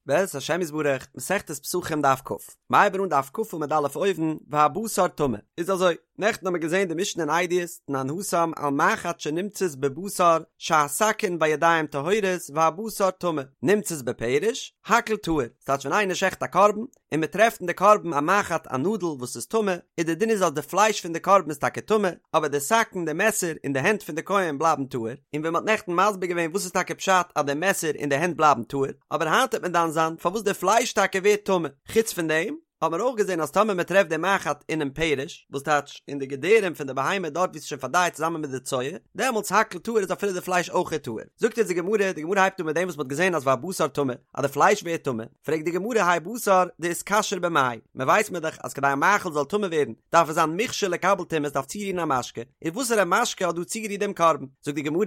בעזרת השם יתברך, מסכת פסחים דף כ, מ'הייבן אן דף כ עמוד א' אויבן, והבשר טמא. איז אזוי, נעכטן האמיר געזען די משנה אין עדיות, תנן התם על מחט שנמצאת בבשר שהסכין והידיים טהורות והבשר טמא, נמצאת בפרש, הכל טהור, ס'טייטש ווען איינער שעכט א קרבן, און מען טרעפט אין די קרבן א מחט א נאדל וואס איז טמא, איז די דין איז אז די פלייש פון די קרבן איז טאקע טמא, אבער די סכין די מעסער און די הענט פון די כהן בלייבן טהור, און ווי מען האט נעכטן מסביר געווען וואס איז טאקע פשט אז די מעסער און די הענט בלייבן טהור, אבער היינט וועט מען דן זיין פארוואס די פלייש טאקע ווערט טמא, חוץ פון דעם האט מען אויך געזען אז טאמער מען טרעפט די מחט אינעם פרש, וואס טייטש אין די געדערים פון די בהמה דארט ווי עס איז שוין פארדייט צוזאמען מיט די צואה, דעמאלטס הכל טהור איז אפילו די פלייש אויכעט טהור. זאגט אונז די גמרא, די גמרא הייבט אן מיט דעם וואס מען האט געזען אז והבשר טמא, אז די פלייש ווערט טמא, פרעגט די גמרא האי בשר דאיתכשר במאי, מען ווייסט מיר דאך אז כדי א מאכל זאל טמא ווערן דארף עס זיין מוכשר לקבל טומאה עס דארף צורירן א משקה, איז וואסערע משקה האט דא צוגערירט דעם קרבן? זאגט די גמרא,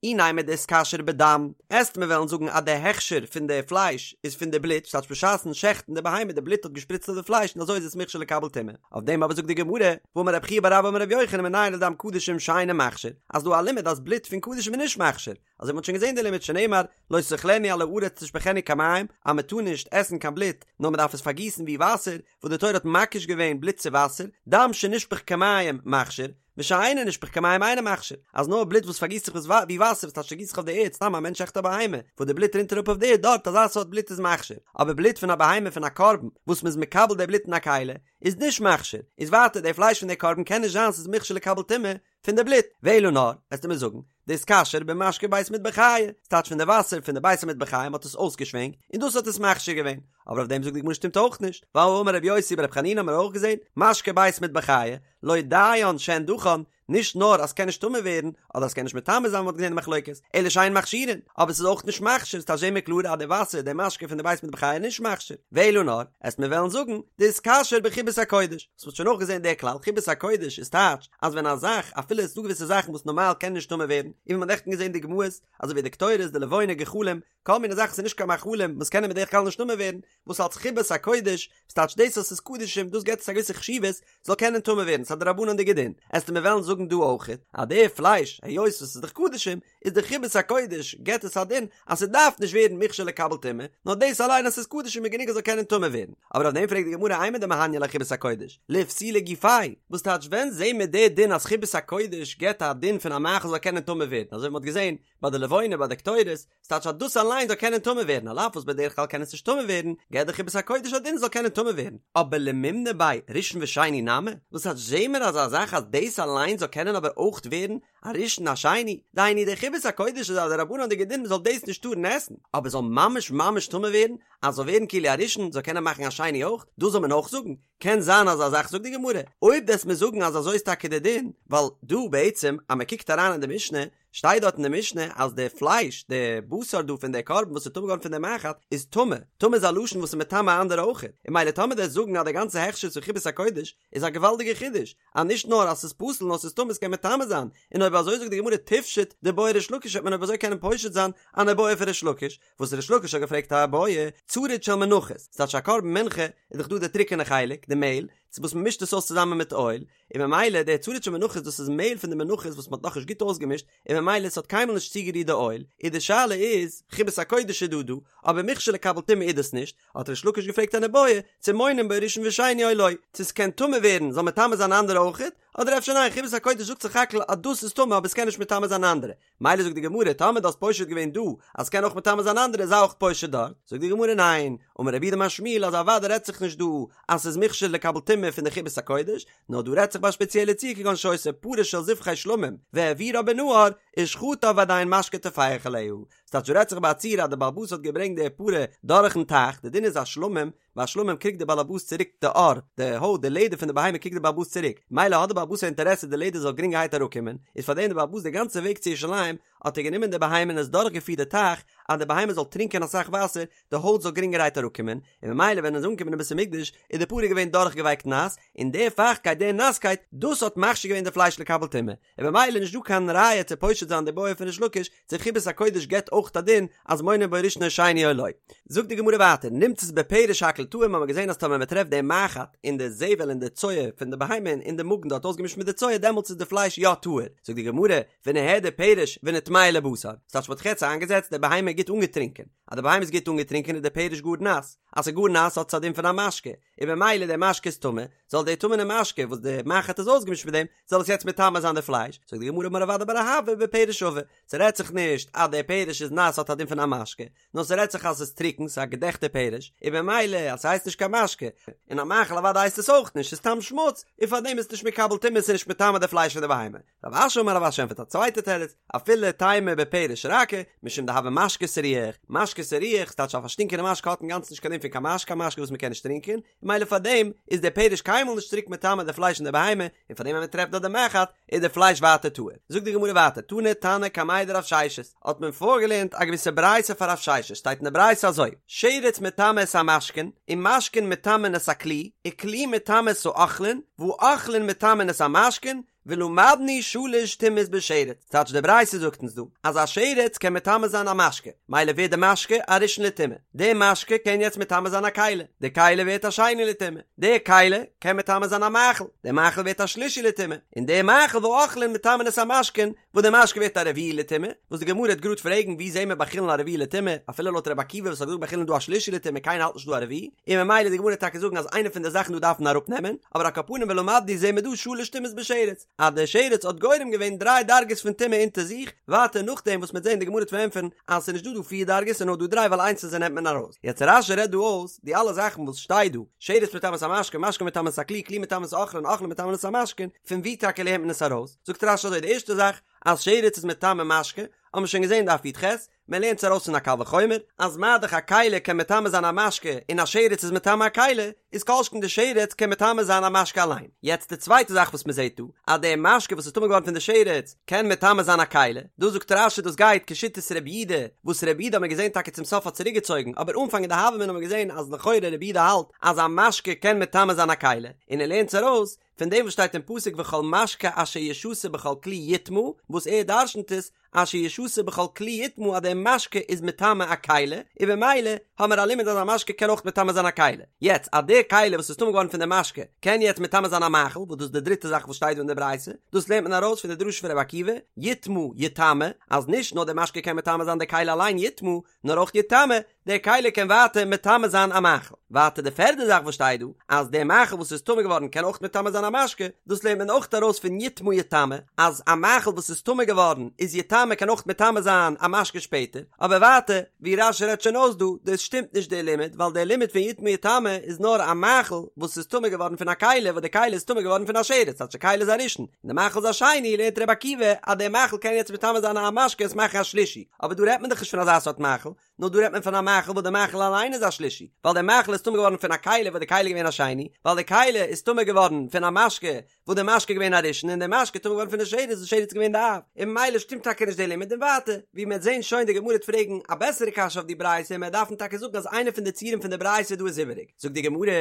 אי נימא דאיתכשר בדם, עסט מיר וועלן זאגן אז די הכשר פון די פלייש איז פון די בלוט, ס'טייטש בשעת'ן שעכטן די בהמה די בלוט האט געשפריצט אויף די פלייש און אזוי איז עס מוכשר לקבל טומאה, אויף דעם אבער זאגט די גמרא, והאמר רב חייא בר אבא אמר רבי יוחנן מנין לדם קדשים שאינו מכשיר, אז דא א לימוד אז בלוט פון קדשים איז נישט מכשיר, אזוי מ'האט שוין געזען די לימוד שנאמר לא תאכלנו על הארץ תשפכנו כמים אז מ'טאר נישט עסן קיין בלוט נאר מ'דארף עס פארגיסן ווי וואסער וואס די תורה האט מקיש געווען בלוט צו וואסער דם שנשפך כמים מכשיר ושאינו נשפך כמים אינו מכשיר אז נאר בלוט וואס פארגיסט זיך ווי וואסער וואס טייטש ס'גיסט זיך אויף די ערד סתם א מענטש שעכט א בהמה וואס די בלוט רינט אראפ אויף די ערד דארט אזא סארט בלוט איז מכשיר אבער בלוט פון א בהמה פון א קרבן וואס מ'איז מקבל די בלוט אין א כלי איז נישט מכשיר איז ווייטער די פלייש פון די קרבן קען נישט זיין ס'איז מוכשר לקבל טומאה פון די בלוט, ואלא נאר, וועסטו מיר זאגן, דאיתכשר במשקה בית מטבחיא, ס'טייטש פון די וואסער פון די בית המטבחיים האט עס אויסגעשווענקט, און דאס האט עס מכשיר געווען, אבער אויף דעם זאגט די גמרא שטימט אויך נישט, ווייל האמר רבי יוסי ברבי חנינא האמיר אויך געזען, משקה בית מטבחיא, לא דיין שהן דכן, נישט נאר אז ס'קען נישט טמא ווערן, אדער אז ס'קען נישט מטמא זיין ווי מ'האט געזען די מחלוקת, אלא שאין מכשירין, אבער ס'איז אויך נישט מכשיר, ס'טייטש זעהן מיר קלאר אז די וואסער, די משקה פון די בית מטבחיא איז נישט מכשיר, ואלא נאר, עסט מיר וועלן זאגן, דאיתכשר בחיבת הקודש. וואס מ'האט שוין אויך געזען דער כלל, חיבת הקודש איז טייטש אז ווען א זאך, אפילו עס איז דא געוויסע זאכן וואס נארמאל קענען נישט טמא ווערן, און ווי מ'האט נעכטן געזען דוגמאות, אזוי ווי די קטורת, די לבונה, גחלים, כל מיני זאכן וואס איז נישט קיין מאכלים וואס קענען בדרך כלל נישט טמא ווערן, וואס אלס חיבת הקודש, וואס טייטש דאס אז ס'איז קדשים, דאס געבט עס א געוויסע חשיבות, זאל קענען טמא ווערן, ס'איז א דרבנן'דיגע דין. עסטו מיר וועלן זאגן דא אויכעט, אז די פלייש, היות וואס ס'איז דאך קדשים, איז די חיבת הקודש געבט עס א דין אז ס'דארף נישט ווערן מוכשר לקבל טומאה, נאר דאס אליין אז ס'איז קדשים איז גענוג עס זאל קענען טמא ווערן. אבער אויף דעם פרעגט די גמרא אימר דמהניא ליה חיבת הקודש, לאיפסולי גופיה, וואס טייטש ווען זעהן מיר די דין אז חיבת הקודש געבט א דין פון א מאכל זאל קענען טמא ווערן, אזוי ווי מ'האט געזעהן ביי די לבונה ביי די קטורת, ס'טייטש אז דאס אליין זאל קענען טמא ווערן, על אף וואס בדרך כלל קען עס נישט טמא ווערן, געבט די חיבת הקודש א דין ס'זאל קענען טמא ווערן. אבער למימנא ביה ראשון ושני נמי, וואס טייטש זעהן מיר אזא זאך אז דאס אליין זאל קענען אבער אויך ווערן א ראשון א שני, דהיינו די חיבת הקודש איז א דרבנן'דיגע דין מ'זאל דאס נישט טארן עסן, אבער זאל ממש ממש טמא ווערן, אז זאל ווערן כאילו א ראשון, זאל קענען מאכן א שני אויך, דאס זאל מען אויך זאגן? קען זיין אזא זאך זאגט די גמרא, אויב וועסט מיר זאגן אז אזוי איז טאקע די דין, ווייל דא בעצם אז מ'קוקט אריין אין די משנה, שטייט דארט אין די משנה אז די פלייש, די בשר דא פון די קרבן וואס איז טמא געווארן פון די מחט, איז טמא, טמא איז א לשון וואס איז מטמא אנדערע אויכעט, און ממילא טאמער דו וועסט זאגן אז די גאנצע הכשר איז פון חיבת הקודש, איז א געוואלדיגע חידוש, אז נישט נאר אז ס'איז פסול נאר ס'איז טמא ס'קען מטמא זיין, און אויב אזוי זאגט די גמרא תפשוט דבעי ריש לקיש וועט מען אויב אזוי קענען פושט זיין אן איבעיא פון ריש לקיש, וואס ריש לקיש האט געפרעגט א איבעיא, צריד של מנחות, ס'טייטש א קרבן מנחה איז דאך דא די טרוקענע חלק, די מעהל, צו וואס מ'מישט עס אויס צוזאמען מיט אויל, און ממילא די צריד של מנחות דאס איז מעהל פון די מנחות וואס מ'האט נאכנישט גוט אויסגעמישט, און ממילא ס'האט קיינמאל נישט צוגערירט די אויל, און די שאלה איז, חיבת הקודש איז דא דא, אבער מוכשר לקבל טומאה איז דאס נישט, האט ריש לקיש געפרעגט אן איבעיא, צו מונין בו ראשון ושני או לא, צו ס'קען טמא ווערן זאל מטמא זיין אנדערע אויכעט, אדער אפשר ניין חיבת הקודש זאגט סך הכל אז דאס איז טמא אבער ס'קען נישט מטמא זיין אנדערע, מילא זאגט די גמרא טאמער דו האסט פושט געווען דא אז ס'קען אויך מטמא זיין אנדערע זיי אויך פושט דארט, זאגט די גמרא ניין, אמר רב יהודה אמר שמואל אז אוודאי רעדט זיך נישט דא אז ס'איז מוכשר לקבל טומאה פון די חיבת הקודש, נאר דא רעדט זיך ביי א שפעציעלע ציור כגון שהיתה פרה של זבחי שלמים והעבירה בנהר ושחטה ועדיין משקה טופח עליה, ס'טייטש דא רעדט זיך ביי א ציור אז די בעל הבית האט געברענגט די פרה דורכן טייך, די דין איז א שלמים, ביי א שלמים קריגט די בעל הבית צוריק די עור, די הויט, די לעדער פון די בהמה קריגט די בעל הבית צוריק, מילא האט די בעל הבית א אינטערעסע די לעדער זאל גרינגערהייט אראפקומען, איז פארדעם די בעל הבית די גאנצע וועג צו ירושלים האט ער גענומען די בהמה און עס דורכגעפירט די טייך אז די בהמה זאל טרינקען אסאך וואסער, די הויט זאל גרינגערהייט אראפקומען, און ממילא ווען ער איז אנגעקומען אין בית המקדש איז די פרה געווען דורכגעווייקט נאס, און די פייכטקייט די נאסקייט דאס האט מכשיר געווען די פלייש לקבל טומאה, און ממילא נישט דא קיין ראיה צו פושט זיין די בעיא פון ריש לקיש צו חיבת הקודש געבט אויך א דין אז מונין בו ראשון או שני או לא. זאגט די גמרא ווייטער, נמצאת בפרש הכל טהור האבן מיר געזען אז טאמער מען טרעפט די מחט אין די זבל אין די צואה פון די בהמה אין די מאגן דארט אויסגעמישט מיט די צואה דעמאלטס איז די פלייש יא טהור, זאגט די גמרא, ונהדר פרש ונטמאה לבשר, ס'טייטש מ'האט זיך יעצט איינגעזעצט די בהמה גוט אנגעטרינקען. אז די בהמה איז גוט אנגעטרינקען איז די פרש גאר נאס, אז ס'איז גאר נאס האט עס א דין פון א משקה, און במילא די משקה איז טמא, זאל די טמא'נע משקה וואס די מחט איז אויסגעמישט מיט דעם, זאל עס יעצט מטמא זיין די פלייש, זאגט די גמרא אמר רב אדא בר אהבה בפרש עבה, ס'רעדט זיך נישט אז די פרש איז נאס האט א דין פון א משקה, נאר ס'רעדט זיך אז ס'איז טרוקן, ס'איז א געדעכטע פרש, און במילא אז ס'הייסט נישט קיין משקה, און א מאכל אוודאי הייסט עס אויך נישט, ס'איז סתם שמוץ, און פארדעם איז עס נישט מקבל טומאה, ס'איז נישט מטמא די פלייש פון די בהמה. רב אשי אמר רב אשי ענטפערט א צווייטע תירוץ, אפילו תימא בפרש רכה, משום דהוי משקה סריח, משקה סריח, ס'טייטש א פארשטינקענע משקה האט אינגאנצן נישט קיין דין פון קיין משקה, א משקה וואס מ'קען נישט טרינקען, און ממילא פארדעם איז דער פרש קיינמאל נישט צוריק מטמא די פלייש פון די בהמה, און פארדעם ווען מ'טרעפט דארט די מחט, איז די פלייש ווייטער טהור. זאגט די גמרא ווייטער, תני תנא קמיה דרב ששת, האט מען פארגעלערנט א געוויסע ברייתא פאר רב ששת, שטייט אין די ברייתא אזוי, שרץ מטמא את המשקין, ומשקין מטמאין את הכלי, וכלי מטמא את האוכלין, והאוכלין מטמאין את המשקין, ולמדנו שלש טומאות בשרץ, טייטש די ברייתא זאגט אונז דא, אז א שרץ קען מטמא זיין א משקה, מילא ווערט די משקה א ראשון לטומאה, די משקה קען יעצט מטמא זיין א כלי, די כלי ווערט א שני לטומאה, די כלי קען מטמא זיין א מאכל, די מאכל ווערט א שלישי לטומאה, און די מאכל והאוכלין מטמאין את המשקין, וואס די משקה ווערט א רביעי לטומאה, וואס די גמרא וועט גראד פרעגן ווי זעהן מיר ביי חולין א רביעי לטומאה, אפילו לויט רבי עקיבא וואס האט געזאגט ביי חולין איז דא א שלישי לטומאה קיינער האלט נישט דא א רביעי, און ממילא די גמרא וועט טאקע זאגן אז איינע פון די זאכן דא דארף מען אראפ נעמען, אבער על כל פנים ולמדנו זעהן מיר דא שלש טומאות בשרץ, אז די שרץ האט גורם געווען דריי דרגות פון טומאה אונטער זיך, ווייטער נאכדעם וואס מ'וועט זעהן די גמרא וועט פארענטפערן אז ס'איז נישט דא דא פיר דרגות ס'איז נאר דא דריי ווייל איינס פון זיי נעמט מען ארויס. יעצט רש"י רעדט דא אויס די אלע זאכן וואס שטייט דא, שרץ מטמא את המשקה, משקה מטמא את הכלי, כלי מטמא את האוכלין, אוכלין מטמא את המשקין, פון ווי טאקע לערנט מען עס ארויס? זאגט רש"י אזוי, די ערשטע זאך אז שרץ איז מטמא משקה, האבן מיר שוין געזען דף י"ח, מען לערנט עס ארויס פון א קל וחומר, אז מה דאך א כלי קען מטמא זיין א משקה און א שרץ איז מטמא א כלי, איז כל שכן די שרץ קען מטמא זיין א משקה אליין. יעצט די צווייטע זאך וואס מען זעט דא, אז די משקה וואס איז טמא געווארן פון די שרץ קען מטמא זיין א כלי, דא זאגט רש"י דאס גייט כשיטת רבי יהודה, וואס רבי יהודה האט מען געזען טאקע צום סוף האט צוריק געצויגן, אבער אנפאנג אין די הוה אמינא האט מען געזען אז לכאורה רבי יהודה האלט אז א משקה קען מטמא זיין א כלי, און ער לערנט עס ארויס פון דעם וואס שטייט אין פסוק וכל משקה אשר ישתה בכל כלי יטמא, וואס ער דרשנ'ט עס אשר ישתה בכל כלי יטמא אז דער משקה איז מטמא א כלי, און במילא האמער א לימוד אז א משקה קען אויך מטמא זיין א כלי. יעצט אז דער כלי וואס איז טמא געווארן פון דער משקה קען יעצט מטמא זיין א מאכל, וואס דאס איז די דריטע זאך וואס שטייט דא אין די ברייתא, דאס לערנט מען ארויס פון די דרשה פון רבי עקיבא, יטמא יטמא, אז נישט נאר דער משקה קען מטמא זיין די כלי אליין יטמא, נאר אויך יטמא, דער כלי קען ווייטער מטמא זיין א מאכל. ווייטער די פערדע זאך וואס שטייט דא, אז דער מאכל וואס איז טמא געווארן קען אויך מטמא זיין א משקה, דאס לערנט מען אויך ארויס פון יטמא יטמא, אז א מאכל וואס איז טמא געווארן איז יטמא קען אויך מטמא זיין א משקה שפעטער. אבער ווייטער, ווי רש"י רעדט שוין אויס דא, דאס שטימט נישט דער לימוד, ווייל דער לימוד פון יטמא יטמא איז נאר א מאכל וואס איז טמא געווארן פון א כלי, וואס די כלי איז טמא געווארן פון א שרץ, כאטש די כלי איז א ראשון, און די מאכל איז א שני, לערנט רבי עקיבא אז דער מאכל קען יעצט מטמא זיין א משקה און עס מאכן א שלישי. אבער דא רעדט מען דאך נישט פון אזא סארט מאכל, נאר דא רעדט מען פון א מאכל וואס די מאכל אליין איז א שלישי, ווייל דער מאכל איז טמא געווארן פון א כלי וואס די כלי איז געווען א שני, ווייל די כלי איז טמא געווארן פון א משקה וואס די משקה איז געווען א ראשון און די משקה איז טמא געווארן פון די שרץ וואס די שרץ איז געווען די אב, און ממילא שטימט טאקע נישט די לימוד און ווייטער, ווי מען וועט זען שוין די גמרא וועט פרעגן א בעסערע קשיא אויף די ברייתא און מען וועט דארפן טאקע זאגן אז איינע פון די ציורים פון די ברייתא דא איז איבעריג, זאגט די גמרא,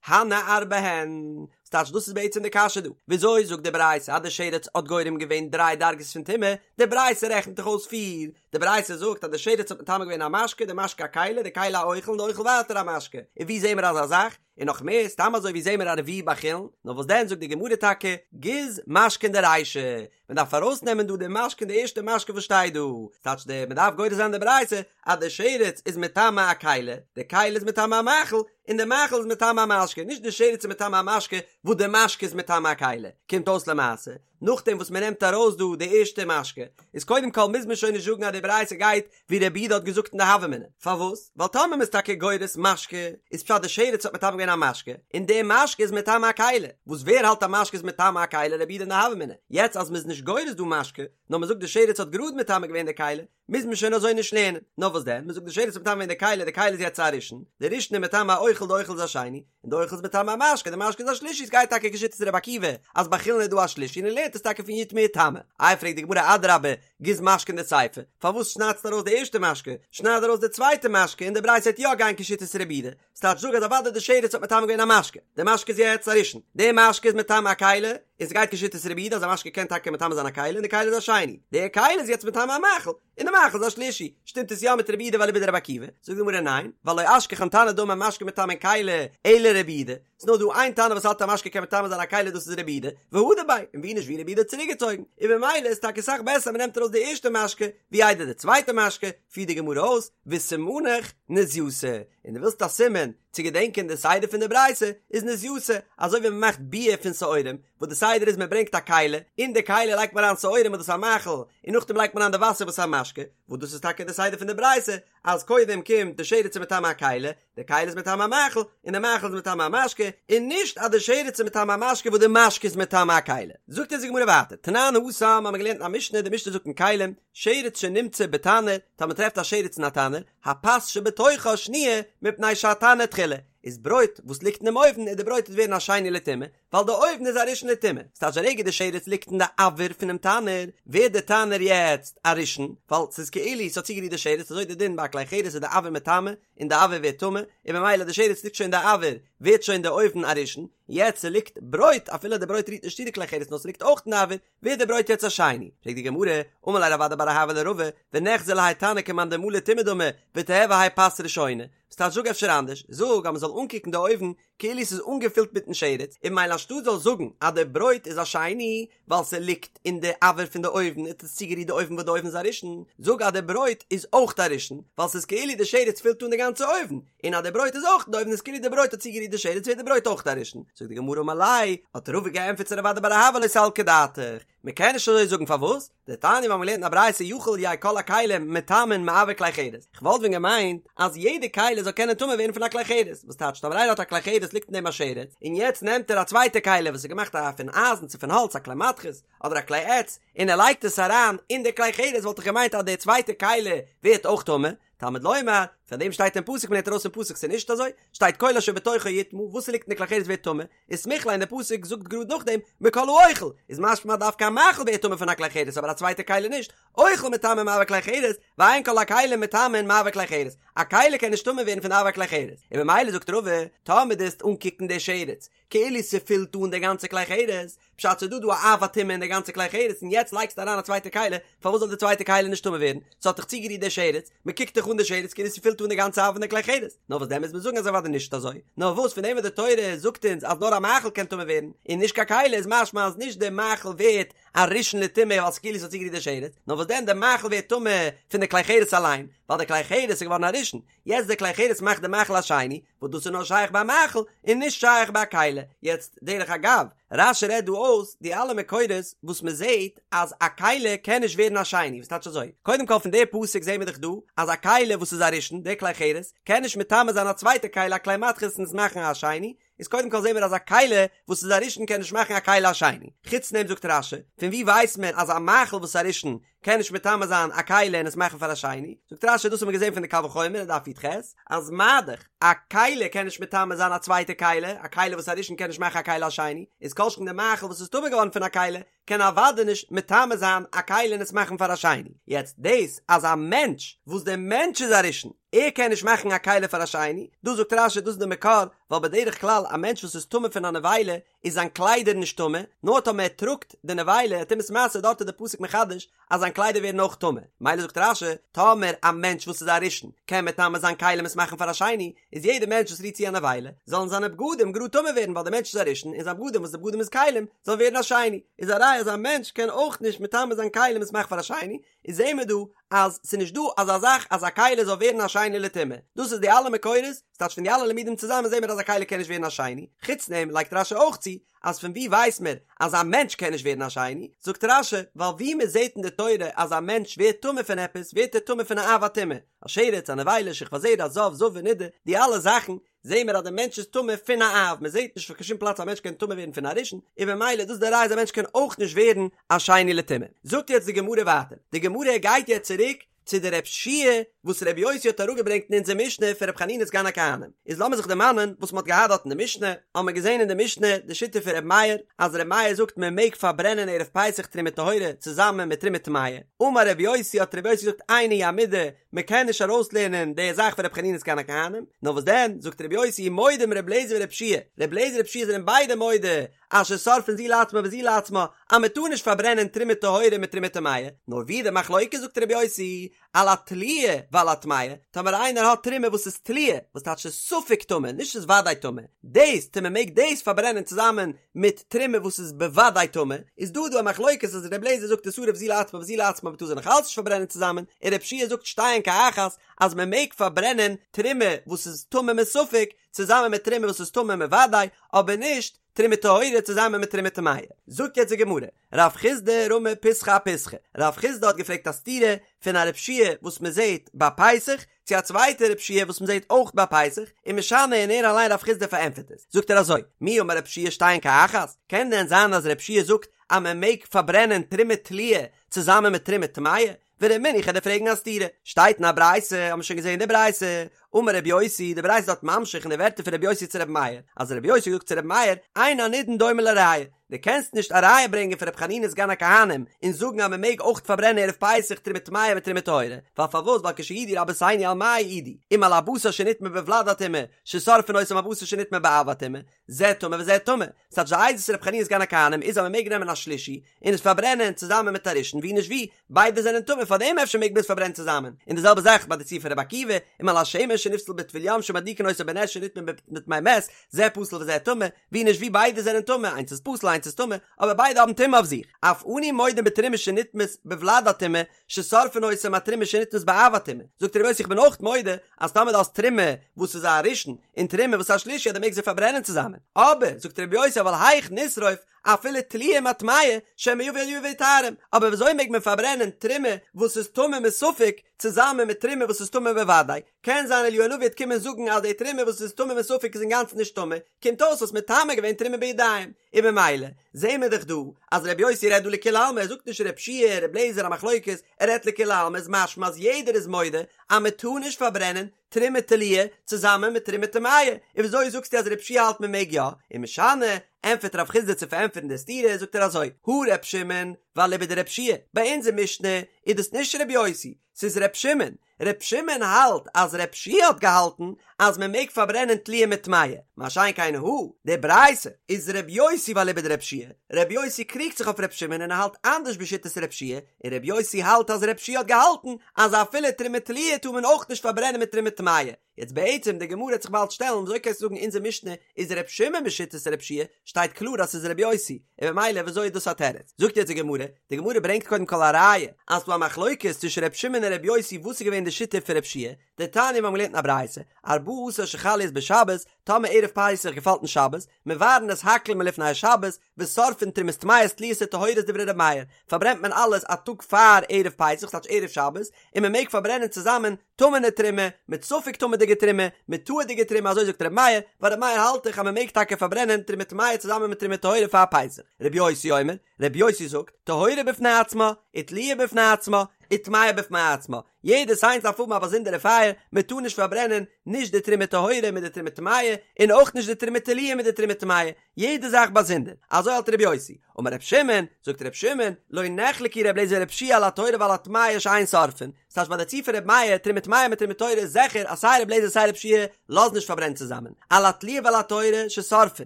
הני ארבע הן, ס'טייטש דאס איז בעצם די קשיא דא, וויאזוי זאגט די ברייתא אז די שרץ האט גורם געווען דריי דרגות פון טומאה, די ברייתא רעכנט דאך אויס פיר, די ברייתא זאגט אז די שרץ האט מטמא געווען א משקה, די משקה א כלי, די כלי א אוכל און די אוכל ווייטער א משקה, און ווי זעהן מיר אזא זאך? און נאך מער, סתם אזוי ווי זעהן מיר א רביעי ביי חולין? נאר וואס דען זאגט די גמרא טאקע, גוז משקין דרישא, מען דארף ארויסנעמען דא די משקין די ערשטע משקה וואס שטייט דא, ס'טייטש די מען דארף גורס זיין די ברייתא אז די שרץ איז מטמא א כלי, די כלי איז מטמא א מאכל, און די מאכל איז מטמא א משקה, נישט די שרץ איז מטמא א משקה וואס די משקה איז מטמא א כלי, קומט אויס למעשה, נאכדעם וואס מען נעמט ארויס דא די ערשטע משקה, איז קודם כל מוז מען שוין נישט זאגן אז די ברייתא גייט ווי רבי יהודה האט געזאגט אין די הוה אמינא, פארוואס? ווייל טאמער מען איז טאקע גורס משקה, איז פשט די שרץ האט מטמא געווען א משקה, און די משקה איז מטמא א כלי, וואס ווער האלט א משקה איז מטמא א כלי רבי יהודה אין די הוה אמינא, יעצט אז מען איז נישט גורס דא משקה, נאר מען זאגט די שרץ האט גראד מטמא געווען די כלי, מוז מען שוין אזוי נישט לערנען, נאר וואס דען, מען זאגט די שרץ האט מטמא געווען די כלי, די כלי איז יעצט א ראשון, די ראשון איז מטמא א אוכל, די אוכל איז א שני, און די אוכל איז מטמא א משקה, די משקה איז א שלישי, עס גייט טאקע כשיטת רבי עקיבא, אז ביי חולין איז דא א שלישי און ער לערנט עס טאקע פון יטמא יטמא. איי פרעגט די גמרא אדרבה, גוז משקין דסיפא, פארוואס שניידסטו ארויס די ערשטע משקה, שנייד ארויס די צווייטע משקה און די ברייתא וועט יא גיין כשיטת רבי יהודה, ס'טייטש זאג אז אוודאי די שרץ האט מטמא געווען א משקה, די משקה איז יעצט א ראשון, די משקה איז מטמא א כלי, און ס'גייט כשיטת רבי יהודה אז א משקה קען טאקע מטמא זיין א כלי און די כלי איז א שני, די כלי איז יעצט מטמא א מאכל, און די מאכל איז א שלישי, שטימט עס יא מיט רבי יהודה ואליבא דרבי עקיבא? זאגט די גמרא ניין, ווייל לא אשכחן תנא דאמר משקה מטמאין כלי, אלא רבי יהודה, ס'נאר דא איין תנא וואס האלט א משקה קען מטמא זיין א כלי דאס איז רבי יהודה, והדר ביה, און ווי נישט ווי רבי יהודה האט צוריקגעצויגן, און במילא איז טאקע אסאך בעסער מ'נעמט ארויס די ערשטע משקה, ווי איידער די צווייטע משקה, פירט די גמרא אויס, וסימנך נזייתא, און דו ווילסט א סימן צו געדענקען די סדר פון די ברייתא, איז נזייתא, אזוי ווי מ'מאכט ביר פון שעורים, וואס די סדר איז מ'ברענגט א כלי, אין די כלי לייגט מען אריין שעורים וואס דאס איז א מאכל, און נאכדעם לייגט מען אריין די וואסער וואס איז א משקה, וואס דאס איז טאקע די סדר פון די ברייתא, אז קודם קומט די שרץ איז מטמא א כלי, די כלי איז מטמא א מאכל, און די מאכל איז מטמא א משקה, און נישט אז די שרץ איז מטמא א משקה וואס די משקה איז מטמא א כלי. זאגט אונז די גמרא ווייטער, תנן התם האבן מיר געלערנט אין א משנה, די משנה זאגט אין כלים, שרץ שנמצא בתנור, טאמער מ'טרעפט א שרץ אין א תנור, הפת שבתוכה שניה מפני שהתנור תחילה, איז ברויט וואס ליגט אינעם אויוון איז די ברויט וועט ווערן א שני לטומאה, ווייל די אויוון איז א ראשון לטומאה, ס'טייטש די רגע די שרץ ליגט אין די אויר פונעם תנור, ווערט די תנור יעצט א ראשון, ווייל ס'איז כאילו ס'האט צוגערירט די שרץ, אזוי די דין ביי א כלי חרס איז די אויר מטמא, און די אויר ווערט טמא, און ממילא די שרץ ליגט שוין אין די אויר, ווערט שוין די אויוון א ראשון, יעצט ס'ליגט ברויט, אפילו די ברויט רירט נישט צו די כלי חרס נאר ס'ליגט אויך אין די אויר, ווערט די ברויט יעצט א שני. פרעגט די גמרא, אמר ליה רב אדא בר אהבה לרבא, ונחזי להאי תנור כמאן דמלי טומאה דמי, ותיהוי האי פת ראשונה. ס'טייטש זאג אפשר אנדערש, זאג אז מ'זאל אנקוקן די אויוון כאילו ס'איז אנגעפילט מיטן שרץ, און ממילא אנשטאט זאל זאגן אז די ברויט איז א שני ווייל ס'ליגט אין די אויר פון די אויוון האט עס צוגערירט די אויוון וואס די אויוון איז א ראשון, זאג אז די ברויט איז אויך א ראשון ווייל ס'איז כאילו די שרץ פילט אן די גאנצע אויוון, און אז די ברויט איז אויך אין די אויוון איז כאילו די ברויט האט צוגערירט די שרץ ווערט די ברויט אויך א ראשון. זאגט די גמרא אמר ליה, האט רבא געענטפערט צו רב אדא בר אהבה לא סלקא דעתך, מ'קען נישט אזוי זאגן פארוואס? דתניא מיר האבן געלערנט אין א ברייתא יכול יהו כל הכלים מטמאין מאויר כלי חרס, כ'וואלט ווען געמיינט אז יעדע כלי זאל קענען טמא ווערן פון א כלי חרס, וואס טייטש טאמער איינער האט א כלי חרס ליגט אין דעם א שרץ, און יעצט נעמט ער א צווייטע כלי וואס איז געמאכט א פון אייזן צו פון האלץ א כלי מתכות אדער א כלי עץ און ער לייגט עס אריין אין די כלי חרס וואלט איך געמיינט אז די צווייטע כלי ווערט אויך טמא, תלמוד לומר, פאר דעם שטייט אין פסוק מען לערנט ארויס פון פסוק ס'איז נישט אזוי, שטייט כל אשר בתוכו יטמא, וואס ס'ליגט אין די כלי חרס ווערט טמא, וסמיך ליה און די פסוק זאגט גראד נאכדעם מכל האוכל, איז משמע דווקא א מאכל ווערט טמא פון א כלי חרס אבער א צווייטע כלי נישט, אוכל מטמא מאויר כלי חרס, ואין כל הכלים מטמאין מאויר כלי חרס, א כלי קען נישט טמא ווערן פון אויר כלי חרס, און ממילא זאגט רבא, טאמער דו וועסט אנקוקן די שרץ, כאילו ס'פילט אן די גאנצע כלי חרס, פשט ס'איז דא דא א אב הטומאה אין די גאנצע כלי חרס און יעצט לייגסטו אריין א צווייטע כלי, פארוואס זאל די צווייטע כלי נישט טמא ווערן? ס'האט דאך צוגערירט די שרץ, מ'קוקט דאך אן די שרץ כאילו ס'פילט אן די גאנצע אב פון די כלי חרס, נאר וואס דען מוז מען זאגן אז אוודאי נישט אזוי, נאר וואס פון דעם וואס די תורה זאגט אונז אז נאר א מאכל קען טמא ווערן און נישט קיין כלי איז משמע אז נישט די מאכל ווערט א ראשון לטומאה ווייל ס'כאילו ס'האט צוגערירט די שרץ, נאר וואס דען די מאכל ווערט טמא פון די כלי חרס אליין, ווייל די כלי חרס איז געווארן א ראשון, יעצט די כלי חרס מאכט די מאכל א שני, וואס דאס איז נאר שייך ביי מאכל און נישט שייך ביי א כלי. יעצט דרך אגב, רש"י רעדט דא אויס די אלע מקורות וואס מען זעט אז א כלי קען נישט ווערן א שני, וואס טייטש אזוי? קודם כל פון די פסוק זעהן מיר דאך דא אז א כלי וואס איז א ראשון, די כלי חרס, קען נישט מטמא זיין א צווייטע כלי א כלי מתכות און עס מאכן א שני, איז קודם כל זעהן מיר אז א כלי וואס איז א ראשון קען נישט מאכן א כלי א שני. חוץ דעם זאגט רש"י, פון וואו ווייסט מען אז א מאכל וואס איז א ראשון קען נישט מטמא זיין א כלי און עס מאכן פאר א שני? זאגט רש"י דאס האבן מיר געזעהן פון די קל וחומר אין דף י"ח, אז מה דאך א כלי קען נישט מטמא זיין א צווייטע כלי, א כלי וואס איז א ראשון קען נישט מאכן א כלי א שני, איז כל שכן די מאכל וואס איז טמא געווארן פון א כלי קען אוודאי נישט מטמא זיין א כלי און עס מאכן פאר א שני. יעצט דאס אז א מענטש וואס דער מענטש איז א ראשון, ער קען נישט מאכן א כלי פאר א שני, דא זאגט רש"י דאס איז די מקור, ווייל בדרך כלל א מענטש וואס איז טמא פון א נבילה איז זיין קליידער נישט טמא, נאר טאמער ער טראגט די נבילה טומאת משא דארט איז די פסוק מחדש אז זיין קליידער ווערן אויך טמא, מילא זאגט רש"י, טאמער א מענטש וואס איז א ראשון קען מטמא זיין כלים עס מאכן פאר א שני, איז יעדער מענטש וואס רירט צו א נבילה, זאלן זיינע בגדים גראד טמא ווערן ווייל דער מענטש איז א ראשון און זיין בגדים וואס די בגדים איז כלים זאלן ווערן א שני, איז א ראיה אז א מענטש קען אויך נישט מטמא זיין כלים עס מאכן פאר א שני, איז זעהן מיר דא אז ס'איז נישט דא אזא זאך אז א כלי זאל ווערן א שני לטומאה, דאס איז די אלע מקורות, ס'טייטש פון די אלע לימודים צוזאמען זעהן מיר אז א כלי קען נישט ווערן א שני, חוץ דעם לייגט רש"י אויך צו אז פון וואו ווייסט מען אז א מענטש קען נישט ווערן א שני, זאגט רש"י ווייל וואו מען זעהט אין די תורה אז א מענטש ווערט טמא פון עפעס ווערט ער טמא פון א אב הטומאה, א שרץ, א נבילה, שכבת זרע, זב, זבה, נידה, די אלע זאכן זעהן מיר אז די מענטש איז טמא פון א אב, מען זעהט נישט פון קיין שום פלאץ א מענטש קען טמא ווערן פון א ראשון, און במילא דאס איז די ראיה אז א מענטש קען אויך נישט ווערן א שני לטומאה. זאגט יעצט די גמרא ווייטער, די גמרא גייט יעצט צוריק. צו די רב שיע וואס רבי יוסי האט אראפגעברענגט אין אונזער משנה פון רבי חנינא סגן הכהנים. איז לאמיר זיך דערמאנען וואס מ'האט געהאט דארט אין די משנה, האבן מיר געזען אין די משנה די שיטה פון רבי מאיר, אז רבי מאיר זאגט מען מעג פארברענען ערב פסח תרומה טהורה צוזאמען מיט תרומה טמאה, אמר רבי יוסי האט רבי יוסי געזאגט איני המידי, מען קען נישט ארויסלערנען די זאך פון רבי חנינא סגן הכהנים, נאר וואס דען, זאגט רבי יוסי מודים רבי אליעזר ורבי יהושע, רבי אליעזר און רבי יהושע זענען ביידע מודה אז ששורפין זו לעצמה וזו לעצמה, אז מען טאר נישט פארברענען תרומה טהורה מיט תרומה טמאה, נאר ווי די מחלוקת זאגט רבי יוסי, על התלויה ועל הטמאה, טאמער איינער האט תרומה וואס איז תלויה, וואס טייטש ס'איז ספק טמא, נישט ס'איז וודאי טמא, דאס צו מען מעג דאס פארברענען צוזאמען מיט תרומה וואס איז בוודאי טמא, איז דא דא א מחלוקת אז ר' אליעזר זאגט תשרף זו לעצמה וזו לעצמה מ'טאר זיי נאך אלץ נישט פארברענען צוזאמען, און ר' יהושע זאגט שתיהן כאחת אז מען מעג פארברענען תרומה וואס איז טמא מספק צוזאמען מיט תרומה וואס איז טמא מוודאי, אבער נישט תרומה טהורה צוזאמען מיט תרומה טמאה. זאגט יעצט די גמרא, רב חסדא רמי פיסחא אפיסחא, רב חסדא האט געפרעגט א סתירה פון א רב שיע וואס מען זעט ביי פסח, צו א צווייטע רב שיע וואס מען זעט אויך ביי פסח, ומשני און ער אליין רב חסדא פארענטפערט עס, זאגט ער אזוי, מי אמר רב שיע שתיהן כאחת, קען דען זיין אז רב שיע זאגט אז מען מעג פארברענען תרומה תלויה צוזאמען מיט תרומה טמאה? ורמינהו איך וועל דיר פרעגן א סתירה, שטייט אין א ברייתא, האבן מיר שוין געזען די ברייתא, אמר רבי יוסי, די ברייתא איז דארט ממשיך אין די ווערטער פון רבי יוסי צו רבי מאיר, אז רבי יוסי האט געזאגט צו רבי מאיר, אין הנידון דומה לראיה, דו קענסט נישט א ראיה ברענגען פון רבי חנינא סגן הכהנים און זאגן אז מען מעג אויך פארברענען ערב פסח תרומה טמאה מיט תרומה טהורה, ווייל פארוואס ווייל כשהעידו רבותינו על מה העידו, אם על הבשר שנטמא בוולד הטומאה, ששורפין אותו עם הבשר שנטמא באב הטומאה, זה טמא וזה טמא, ס'טייטש די עדות פון רבי חנינא סגן הכהנים איז אז מען מעג נעמען א שלישי און עס פארברענען צוזאמען מיט א ראשון ווי נישט ווי, ביידע זענען טמא פארדעם אפשר מעג מען עס פארברענען צוזאמען, און די זעלבע זאך ביי די ציור פון רבי עקיבא, אם על השמן שנפסל בטבול יום שמדליקין אותו בנר שנטמא בטמא מת, זה פסול וזה טמא, ווי נישט ווי ביידע זענען טמא, איינס איז פסול איינס איז טמא, אבער ביידע האבן טומאה אויף זיך, אף אנו מודים בתרומה שנטמאת בוולד הטומאה, ששורפין אותה עם התרומה שנטמאת באב הטומאה, זאגט רבי יוסי איך בין אויך מודה אז טאמער דו האסט תרומה וואס איז א ראשון און תרומה וואס איז א שלישי אז דו מעגסט זיי פארברענען צוזאמען, אבער זאגט רבי יוסי אבל היאך נשרוף אפילו תלויה עם הטמאה שמא יבא אליהו ויטהרם, אבער וויאזוי מעג מען פארברענען תרומה וואס איז טמא מספק צוזאמען מיט תרומה וואס איז טמא בוודאי, קען זיין אליהו הנביא וועט קומען זאגן אז די תרומה וואס איז טמא מספק איז אינגאנצן נישט טמא, קומט אויס האסט מטמא געווען תרומה בידיים, און במילא זעהן מיר דאך דא אז ר' יוסי רעדט דא לכולי עלמא, ער זאגט נישט ר' יהושע ר' אליעזר א מחלוקת, ער רעדט לכולי עלמא איז משמע אז יעדער איז מודה אז מען טאר נישט פארברענען תרומה תלויה צוזאמען מיט תרומה טמאה, און וויאזוי זאגסטו אז ר' יהושע האלט מען מעג יא? ומשני, ענטפערט רב חסדא צו פארענטפערן די סתירה זאגט ער אזוי, הא ר' שמעון ואליבא דר' יהושע, ביי אונזער משנה איז דאס נישט ר' יוסי, ס'איז ר' שמעון, ר' שמעון האלט אז ר' יהושע האט געהאלטן אז מען מעג פארברענען תלויה מיט טמאה, מה שאין כן הא, די ברייתא איז ר' יוסי ואליבא דר' יהושע, ר' יוסי קריגט זיך אויף ר' שמעון און ער האלט אנדערש בשיטת ר' יהושע, און ר' יוסי האלט אז ר' יהושע האט געהאלטן אז אפילו תרומה תלויה טאר מען אויך נישט פארברענען מיט תרומה טמאה. יעצט בעצם די גמרא וועט זיך באלד שטעלן וויאזוי קענסטו זאגן אונזער משנה איז ר' שמעון בשיטת ר' יהושע, שטייט קלאר אז ס'איז ר' יוסי, און במילא וויאזוי איז דאס א תירוץ? זאגט יעצט די גמרא, די גמרא ברענגט קודם כל א ראיה אז ס'דא א מחלוקת צווישן ר' שמעון און ר' יוסי וואס איז געווען די שיטה פון ר' יהושע, דתניא מיר האבן געלערנט אין א ברייתא, ארבעה עשר שחל להיות בשבת, טאמער ערב פסח געפאלט אין שבת, מבערין את הכל מלפני השבת, ושורפין תרומות טמאות תלויות וטהורות דברי ר' מאיר, פארברענט מען אלעס א טאג פאר ערב פסח ס'טייטש ערב שבת, און מען מעג פארברענען צוזאמען טמא'נע תרומה, מיט ספק טמא'דיגע תרומה, מיט טהור'דיגע תרומה אזוי זאגט ר' מאיר, ווייל ר' מאיר האלט דאך אז מען מעג טאקע פארברענען תרומה טמאה צוזאמען מיט תרומה טהורה פאר פסח. ר' יוסי אומר, ר' יוסי זאגט, טהורה בפני עצמה, ותלויה בפני עצמה, וטמאה בפני עצמה, יעדעס איינס דארף האבן א באזונדערע פייער, מען טאר נישט פארברענען נישט די תרומה טהורה מיט די תרומה טמאה, און אויך נישט די תרומה תלויה מיט די תרומה טמאה, יעדע זאך באזונדער, אזוי האלט ר' יוסי, אמר ר' שמעון, זאגט ר' שמעון, לא נחלקו ר' אליעזר ור' יהושע על הטהורה ועל הטמאה שאין שורפין, ס'טייטש ביי די ציור פון ר' מאיר, תרומה טמאה מיט תרומה טהורה איז זיכער אז סיי ר' אליעזר סיי ר' יהושע לאזן נישט פארברענען צוזאמען, על התלויה ועל הטהורה ששורפין,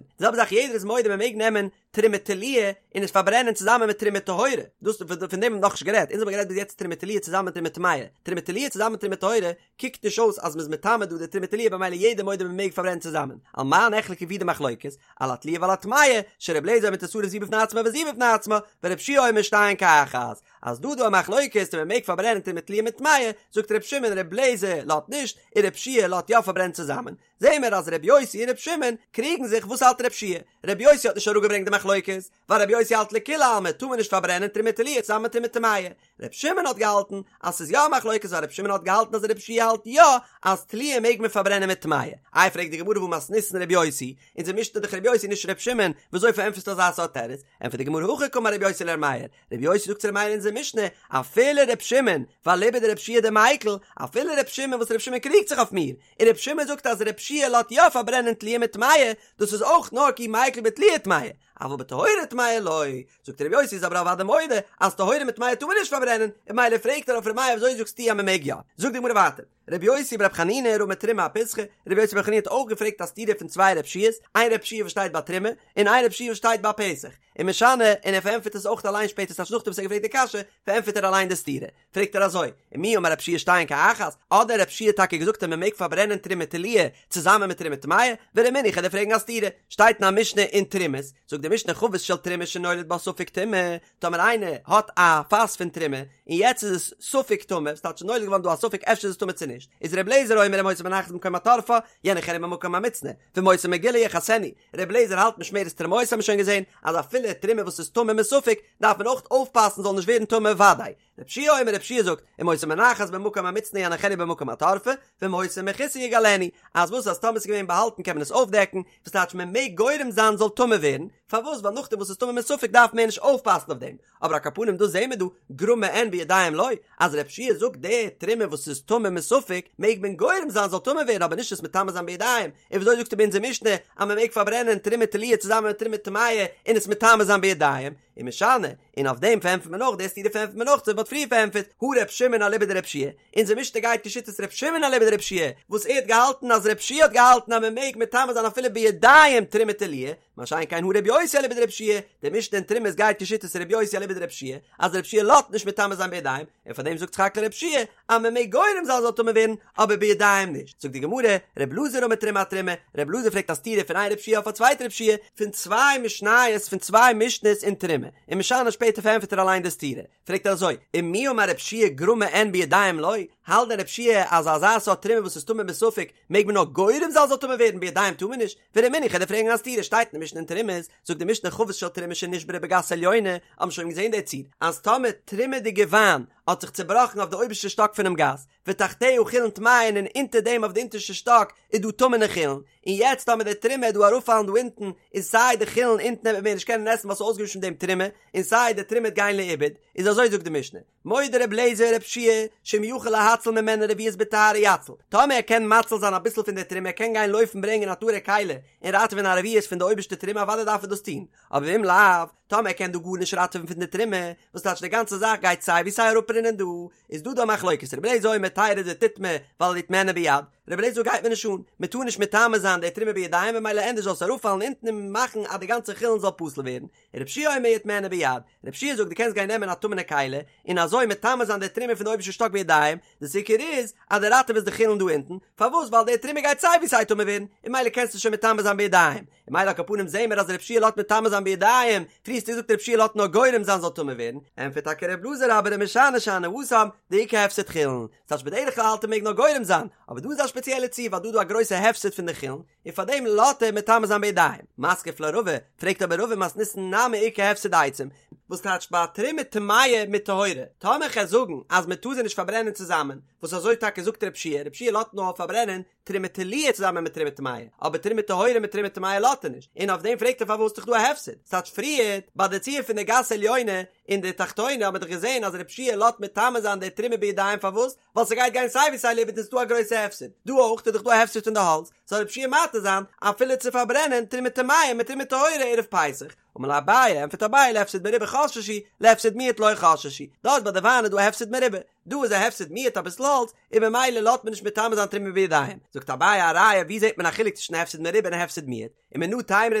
די זעלבע זאך יעדער איז מודה מען מעג נעמען תרומה תלויה און עס פארברענען צוזאמען מיט תרומה טהורה, דאס פון דעם האט מען נאכנישט גערעדט, אונז האבן גערעדט ביז יעצט תרומה תלויה צוזאמען מיט תרומה טמאה, תרומה תלויה צוזאמען מיט תרומה טהורה קוקט נישט אויס אז מ'איז מטמא דא די תרומה תלויה במילא יעדער מודה מ'מעג פארברענען צוזאמען, על מה נחלקו ווי די מחלוקת, על התלויה ועל הטמאה, שר' אליעזר אומר תשרף זו בפני עצמה וזו בפני עצמה, ור' יהושע אומר שתיהן כאחת, אז דא דא א מחלוקת צו מ'מעג פארברענען תרומה תלויה מיט טמאה, זאגט ר' שמעון ר' אליעזר לאזט נישט, און ר' יהושע לאזט יא פארברענען צוזאמען. זעהן מיר אז ר' יוסי און ר' שמעון קריגן זיך וואס האלט ר' יהושע ר' יוסי האט נישט אראפגעברענגט די מחלוקת, ווייל ר' יוסי האלט לכולי עלמא טאר מען נישט פארברענען תרומה תלויה צוזאמען מיט תרומה טמאה, ר' שמעון האט געהאלטן אז ס'איז יא א מחלוקת ווייל ר' שמעון האט געהאלטן אז ר' יהושע האלט יא אז תלויה מעג מען פארברענען מיט טמאה. איי פרעגט די גמרא והא מתניתין ר' יוסי, אונזער משנה איז דאך ר' יוסי נישט ר' שמעון, וויאזוי פארענטפערסטו אזא סארט תירוץ? ענטפערט די גמרא הכי קאמר ר' יוסי לר' מאיר, ר' יוסי זאגט צו ר' מאיר אין אונזער משנה, אפילו ר' שמעון, ואליבא דר' יהושע דמיקל, אפילו ר' שמעון וואס ר' שמעון קריגט זיך אויף מיר, און ר' שמעון זאגט אז ר' יהושע לאזט יא פארברענען תלויה מיט טמאה, דאס איז אויך נאר כי מיקל בתלויה טמאה, אבל בטהורה טמאה לא, זאגט ר' יוסי איז אבער אוודאי מודה אז טהורה מיט טמאה טאר מען נישט פארברענען, און ממילא פרעגט ער אויף ר' מאיר וויאזוי זאגסטו אז מען מעג יא? זאגט די גמרא ווייטער, ר' יוסי בר' חנינא רמי תרומה אפיסחא, ר' יוסי בר' חנינא האט אויך געפרעגט א סתירה פון צוויי ר' יהושע'ס, איין ר' יהושע וואס שטייט ביי תרומה, און איין ר' יהושע וואס שטייט ביי פסח, ומשני, און ער פארענטפערט עס אויך אליין שפעטער ס'טייטש נאכדעם וואס ער האט געפרעגט די קשיא, פארענטפערט ער אליין די סתירה. פרעגט ער אזוי, ומי אמר רב יהושע שתיהן כאחת, האט דען רב יהושע טאקע געזאגט אז מען מעג פארברענען תרומה תלויה צוזאמען מיט תרומה טמאה? ורמינהו כ'וועל דיר פרעגן א סתירה, שטייט אין א משנה אין תרומות, זאגט די משנה חבית של תרומה שנולד בה ספק טומאה, טאמער איינער האט א פאס פון תרומה און יעצט איז עס ספק טמא, ס'טייטש נולד געווארן דא א ספק אפשר איז עס טמא צו נישט, איז ר' אליעזר אומר אם היתה מונחת במקום התורפה יניחנה במקום המוצנע, ואם היתה מגולה יכסנה, ר' אליעזר האלט משמרת תרומותי האט מען שוין געזען אז אפילו תרומה וואס איז טמא מספק דארף מען אויך אויפפאסן זאל נישט ווערן טמא וודאי. רב יהושע אומר רב יהושע זאגט אם היתה מונחת במקום המוצנע יניחנה במקום התורפה ואם היתה מכוסה יגלנה אז וואס אז טאמער ס'איז געווען באהאלטן קען מען עס אויפדעקן וואס טייטש מען מעג גורם זיין זאל טמא ווערן פארוואס ווייל נאכדעם וואס ס'איז טמא מספק דארף מען נישט אויפפאסן אויף דעם אבער על כל פנים דא זעהן מיר דא גרמא אין בידיים לא אז רב יהושע זאגט די תרומה וואס איז טמא מספק מעג מען גורם זיין זאל טמא ווערן אבער נישט עס מטמא זיין בידיים און וויאזוי זאגסטו ביי אונזער משנה אז מען מעג פארברענען תרומה תלויה צוזאמען מיט תרומה טמאה און עס מטמא זיין בידיים ומשני און אויף דעם פארענטפערט מען נאך די סתירה פארענטפערט מען נאך אזוי ווי מ'האט פריער פארענטפערט הא ר' שמעון אליבא דרב יהושע אונזער משנה גייט כשיטת ר' שמעון אליבא דרב יהושע וואס ער האט געהאלטן אז רב יהושע האט געהאלטן אז מען מעג מטמא זיין אפילו בידיים תרומה תלויה מה שאין כן הא רבי יוסי אליבא דרב יהושע, די משנה אין תרומות גייט כשיטת רבי יוסי אליבא דרב יהושע, אז רב יהושע לאזט נישט מטמא זיין בידיים, און פאר דעם זאגט סך הכל רב יהושע אז מען מעג גורם זיין זאל טמא ווערן, אבער בידיים נישט. זאגט די גמרא, רב אלעזר רמי תרומה אתרומה, רב אלעזר פרעגט א סתירה פון איין רב יהושע אויף א צווייטע רב יהושע, פון צוויי משניות פון צוויי משניות אין תרומה, ומשני שפעטער פארענטפערט ער אליין די סתירה, פרעגט ער אזוי, ומי אמר רב יהושע גרמא אין בידיים לא, האלט דען רב יהושע אז אזא סארט תרומה וואס איז טמא מספק מעג מען נאר גורם זיין זאל טמא ווערן בידיים טאר מען נישט? ורמינהו כ'וועל דיר פרעגן א סתירה שטייט אין די משנה אין תרומות, זאגט די משנה חבית של תרומה שנשברה בגת עליונה, האט מען שוין געזען די ציור, אז טאמער תרומה'דיגע וויין האט זיך צובראכן אויף די אויבערשטע שטאק פונעם גת, ותחתיה חולין טמאין און אונטער דעם אויף די אונטערשטע שטאק איז דא טמא'נע חולין, און יעצט טאמער די תרומה וועט דא אראפפאלן דא אונטן, איז סיי די חולין אונטן וועט מען מער נישט קענען עסן ווייל ס'איז אויסגעמישט מיט דעם תרומה, און סיי די תרומה וועט גיין לאיבוד, איז אזוי זאגט די משנה, מודה ר' אליעזר ר' יהושע שאם יכול להציל ממנה רביעית בטהרה יציל, טאמער ער קען מציל זיין אביסל פון די תרומה ער קען גיין לויפן ברענגען א טהור'ע כלי און ראטעווען א רביעית פון די אויבערשטע תרומה אוודאי דארף ער דאס טון, אבער ואם לאו, טאמער ער קען דא גארנישט ראטעווען פון די תרומה, וואס טייטש די גאנצע זאך גייט סיי ווי סיי אראפרינען דא, איז דא דא א מחלוקת רבי אליעזר אומר תרד ותטמא ואל יטמאנה ביד, רבי אליעזר גייט מיר נישט אן, מען טאר נישט מטמא זיין די תרומה בידיים ממילא ענדערש זאל עס אראפפאלן אונטן און מאכן אז די גאנצע חולין זאל פסול ווערן, רבי יהושע אומר יטמאנה ביד, רבי יהושע זאגט דו קענסט גיין נעמען א טמא'נע כלי און אזוי מטמא זיין די תרומה פון די אויבערשטע שטאק בידיים, די עיקר איז אז דו ראטעוועסט די חולין דא אונטן, פארוואס ווייל די תרומה גייט סיי ווי סיי טמא ווערן, און ממילא קענסטו שוין מטמא זיין בידיים, און ממילא על כל פנים זעהן מיר אז רבי יהושע לאזט מטמא זיין בידיים, פריער האסטו געזאגט רבי יהושע לאזט נאר גורם זיין זאל טמא ווערן, ענטפערט טאקע רבי אלעזר אבער ומשני שאני התם דאיכא הפסד חולין, ס'טייטש בדרך כלל האלט ער מעג נאר גורם זיין, אבער דא איז א שפעציעלע ציור ווייל דא איז דא א גרויסע הפסד פון די חולין, און פאר דעם לאזט ער מטמא זיין בידיים. מתקיף לה רבא, פרעגט אבער רבא מתניתין נמי איכא הפסד עצים, וואס טייטש ביי תרומה טמאה מיט טהורה, טאמער כ'על זאגן אז מען טאר זיי נישט פארברענען צוזאמען, וואס אזוי טאקע זאגט רב יהושע, רב יהושע לאזט נאר פארברענען תרומה תלויה צוזאמען מיט תרומה טמאה, אבער תרומה טהורה מיט תרומה טמאה לאזט ער נישט, און אויף דעם פרעגט ער פארוואס איז דאך דא א הפסד, ס'טייטש פריערט ביי די ציור פון די גת עליונה און די תחתונה האט מען דאך געזען אז רב יהושע לאזט מטמא זיין די תרומה בידיים פארוואס? ווייל ס'גייט גיין סיי ווי סיי לאיבוד און ס'דא א גרויסע הפסד, דא אויך איז דאך דא א הפסד פון די האלץ, זאל רב יהושע מתיר זיין אפילו צו פארברענען תרומה טמאה מיט תרומה טהורה ערב פסח, אמר ליה אביי, ענטפערט אביי להפסד מרובה חששו, להפסד מועט לא חששו, דארט ביי די וויין איז דא א הפסד מרובה, דא איז א הפסד מועט אביסל האלץ, און ממילא לאזט מען נישט מטמא זיין תרומה בידיים, זאגט אביי א ראיה ווי זעט מען א חילוק צווישן הפסד מרובה און הפסד מועט, ומנא תימרא